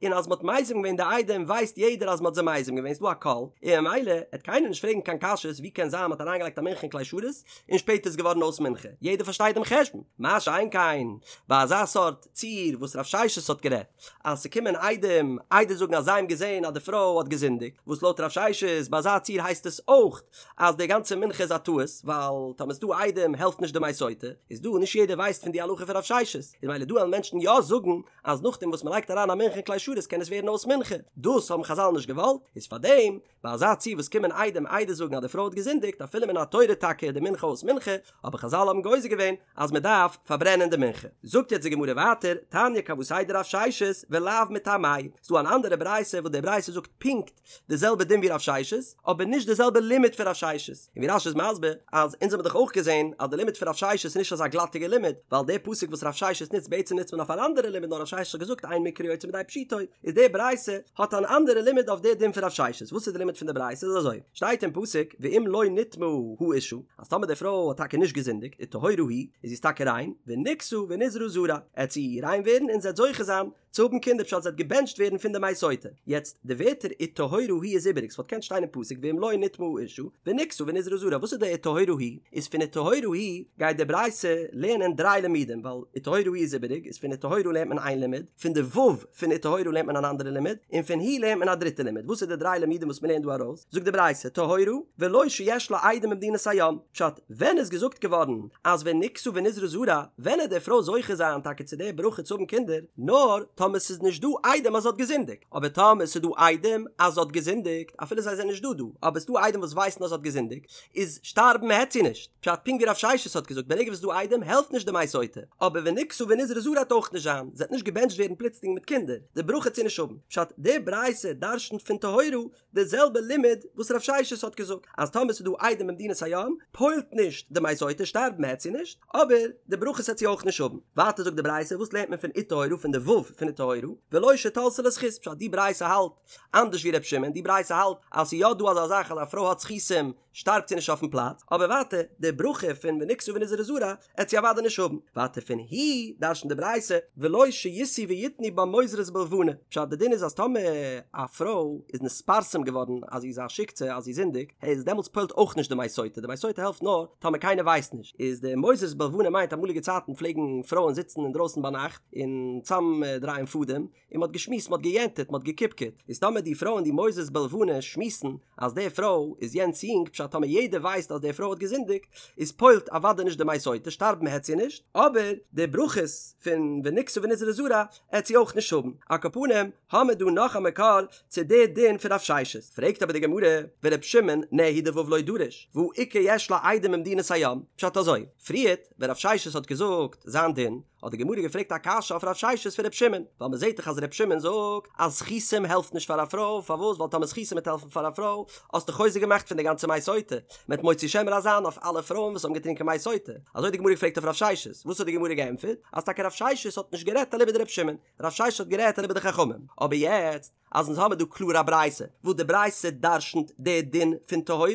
Speaker 1: און אז מ'האט מזים געווען די עדים ווייסט יעדער אז מ'האט זיי מזים געווען, ס'דא א קול, און ממילא עט קיינער נישט פרעגן קיין קשיות ווי קען זיין מ'האט אריינגעלייגט א מנחה אין כלי שרת און שפעטער איז געווארן אויס מנחה, יעדער פארשטייט דעם חשבון, מה שאין כן ביי אזא סארט ציור וואס רב ששת האט גערעדט אז ס'קומען עדים עדות זאגן אז זיי האבן געזען אז די פרוי האט געזינדיגט, וואס לויט רב ששת ביי אזא ציור הייסט עס אויך אז די גאנצע מנחה איז א טעות, ווייל טאמער ס'דא עדים העלפט נישט די מי סוטה, איז דא נישט יעדער ווייסט פון די הלכה פון רב ששת, איז ממילא דא וועלן מענטשן יא זאגן אז נאכדעם וואס מ'לייגט אריין א מנחה אין כלי שרת קען עס ווערן אויס מנחה, דאס האבן חזל נישט געוואלט, איז פארדעם ביי אזא ציור וואס קומען עדים עדות זאגן אז די פרוי האט געזינדיגט אפילו מן התורה טאקע איז די מנחה אויס מנחה, אבער חזל האבן גוזר געווען אז מען דארף פארברענען די מנחה. זאגט יעצט די גמרא ווייטער, תניא כוותיה דרב ששת ולאו מטעמיה, ס'דא אן אנדערע ברייתא וואס די ברייתא זאגט פונקט די זעלבע דין ווי רב ששת, אבער נישט די זעלבע לימוד. לימוד פון רב ששת, און ווי רש"י איז מסביר אז אונז האבן דאך אויך געזען אז די לימוד פון רב ששת איז נישט אזא גלאטיגע לימוד, ווייל די פסוק וואס רב ששת נוצט בעצם נוצט מען אויף אן אנדערע לימוד נאר רב ששת האט געזאגט אין מקרא יוצא מידי פשוטו, איז די ברייתא האט אן אנדערע לימוד אויף די דין פון רב ששת, וואס איז די לימוד פון די ברייתא איז אזוי, שטייט אין פסוק ואם לא נטמאה האשה, אז טאמער די פרוי האט טאקע נישט געזינדיגט וטהורה היא, איז זי איז טאקע ריין, ונקתה ונזרעה זרע, עט זי ריין ווערן און זי עט זוכה זיין צו האבן קינדער פשט זי עט געבענטשט ווערן פון די מי סוטה. יעצט, די ווערטער וטהורה היא איז איבעריג, ס'וואלט געקענט שטיין אין פסוק ואם לא נטמאה האשה, ונקתה ונזרעה זרע, וואס איז די וטהורה היא? איז פון וטהורה היא גייט די ברייתא לערנען דריי לימודים, ווייל וטהורה היא איז איבעריג, איז פון וטהורה לערנט מען איין לימוד, פון די ו' פון וטהורה לערנט מען אן אנדערע לימוד, און פון היא לערנט מען א דריטע לימוד. וואס איז די דריי לימודים וואס מ'לערנט דא ארויס? זאגט די ברייתא, טהורה, ולא שיש לה עדים במדינת הים. פשט, ווען איז געזאגט געווארן אז ונקתה ונזרעה זרע, ווען עט די פרוי זוכה זיין טאקע צו די ברכה צו האבן קינדער, נאר טאמער ס'איז נישט דא עדים אז זי האט געזינדיגט, אבער טאמער ס'איז דא עדים אז זי האט געזינדיגט, אפילו זיי זענען נישט דא דא, אבער ס'דא עדים וואס ווייסן אז זי האט געזינדיגט, איז שטארבן העט זי נישט, פשט פונקט ווי רב ששת האט געזאגט ברגע וואס ס'איז דא עדים העלפט נישט די מי סוטה, אבער ונקתה ונזרעה זרע העט אויך נישט זיין, זי העט נישט געבענטשט ווערן פלוצלינג מיט קינדער, די ברכה העט זי נישט האבן, פשט די ברייתא דרשנ'ט פון טהורה די זעלבע לימוד וואס רב ששת האט געזאגט אז טאמער ס'איז דא עדים במדינת הים פועל'ט נישט די מי סוטה שטארבן העט זי נישט אבער די ברכות העט זי אויך נישט האבן. ווייטער זאגט די ברייתא וואס לערנט מען פון וטהורה פון די ו' פון וטהורה ולא שתלתה לה זכות פשט די ברייתא האלט אנדערש ווי ר' שמעון די ברייתא האלט אז ס'איז יא דא אזא זאך אז א פרוי האט זכותים שטארבט זי נישט אויפן פלאץ, אבער ווייטער, די ברכה פון ונקתה ונזרעה זרע עט זי אוודאי נישט האבן. ווייטער פון היא דרש'נט די ברייתא ולא שישאו ויתנו בה מוזרות בלבנה, פשט די דין איז אז טאמער א פרוי איז נתפרסם געווארן אז זי איז א שיקצע אז זי זינדיגט, איז דעמאלטס פועל'ט אויך נישט די מי סוטה, די מי סוטה העלפט נאר טאמער קיינער ווייסט נישט, איז די מוזרות בלבנה מיינט אמאליגע צייטן פלעגן פרויען זיצן אינדרויסן ביינאכט און צאם דרייען פאדעם, און מ'האט געשמועסט, מ'האט געיענטעט, מ'האט געקיפקעט, איז טאמער די פרויען די מוזרות בלבנה שמועסן אז די פרוי איז יענץ יונג, פשט טאמער יעדער ווייסט אז די פרוי האט געזינדיגט, איז פועל'ט אוודאי נישט די מי סוטה, שטארבן העט זי נישט, אבער די ברכות פון ונקתה ונזרעה זרע העט זי אויך נישט האבן. על כל פנים, האמער דא נאך א מקור צו די דין פון רב ששת. פרעגט אבער די גמרא, ור' שמעון נהי דו' לא דריש, והא איכא יש לה עדים במדינת הים, פשט אזוי, פריערט ווען רב ששת האט געזאגט זיין דין, האט די גמרא געפרעגט א קשיא אויף רב ששת פון ר' שמעון, ווייל מען זעט דאך אז ר' שמעון זאגט אז זכותים העלפט נישט פאר א פרוי, פארוואס? ווייל טאמער זכותים וועט העלפן פאר א פרוי, האסטו חוזק געמאכט פון די גאנצע מי סוטה, מען וועט מוציא שם רע זיין אויף אלע פרויען וואס האבן געטרינקען מי סוטה. אזוי האט די גמרא געפרעגט אויף רב ששת, וואס האט די גמרא געענטפערט? אז טאקע רב ששת האט נישט גערעדט אליבא דר' שמעון, רב ששת האט גערעדט אליבא דחכמים, אבער יעצט אז אונז האמיר דא קלאר א ברייתא וואס די ברייתא דרשנ'ט די דין פון טהורה,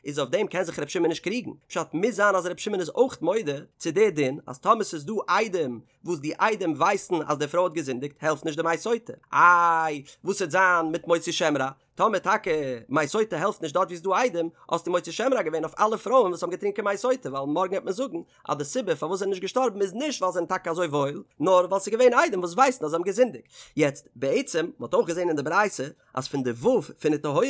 Speaker 1: איז אויף דעם קען זיך ר' שמעון נישט קריגן, פשט מוז זיין אז ר' שמעון איז אויך מודה צו די דין אז טאמער ס'איז דא עדים וואס די עדים ווייסן אז די פרוי האט געזינדיגט העלפט נישט די מי סוטה, איי וואס וועט זיין מיט מוציא שם רע? טאמער טאקע מי סוטה העלפט נישט דארט ווי ס'איז דא עדים, האסטו מוציא שם רע געווען אויף אלע פרויען וואס האבן געטרינקען מי סוטה, ווייל מארגן וועט מען זאגן אז די סיבה פארוואס זיי זענען נישט געשטארבן איז נישט ווייל זיי זענען טאקע אזוי וואויל, נאר ווייל ס'איז געווען עדים וואס ווייסן אז זיי האבן געזינדיגט. יעצט, בעצם, מ'האט אויך געזען אין די ברייתא אז פון די ו' פון וטהורה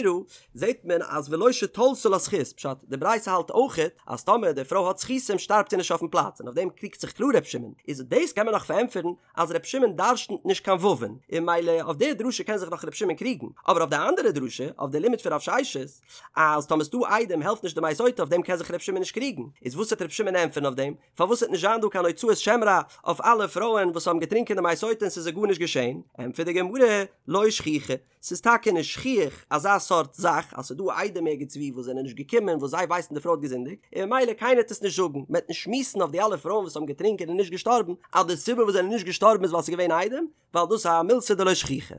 Speaker 1: זעט מען אז ולא שתלתה לה זכות, פשט, די ברייתא האלט אויכעט אז טאמער די פרוי האט זכותים שטארבט זי נישט אויפן פלאץ, און אויף דעם קריגט זיך קלאר ר' שמעון, איז דאס קען מען נאך פארענטפערן אז ר' שמעון דרשנ'ט נישט קיין וואו'ן, און ממילא אויף די דרשה קען זיך נאך ר' שמעון קריגן, אבער אויף די אנדערע דרשה, אויף די לימוד פון רב ששת, אז טאמער ס'דא עדים העלפט נישט די מי סוטה אויף דעם קען זיך ר' שמעון נישט קריגן, איז וואס וועט ר' שמעון ענטפערן אויף דעם? פארוואס וועט נישט זיין דא קיין הוצאת שם רע אויף אלע פרויען וואס האבן געטרינקען די מי סוטה און ס'איז זיי גארנישט געשען? ענטפערט די גמרא, לא שכיחא, ס'איז טאקע נישט שכיח אזא סארט זאך אז ס'איז דא עדים ערגעץ וואו וואס זענען נישט געקומען וואס זיי ווייסן די פרוי האט געזינדיגט און ממילא קיינער וועט עס נישט זאגן, מ'וועט נישט שמועסן אויף די אלע פרויען וואס האבן געטרינקען און נישט געשטארבן אז די סיבה וואס זענען נישט געשטארבן איז ווייל ס'איז געווען עדים, ווייל דאס איז א מילתא דלא שכיחא.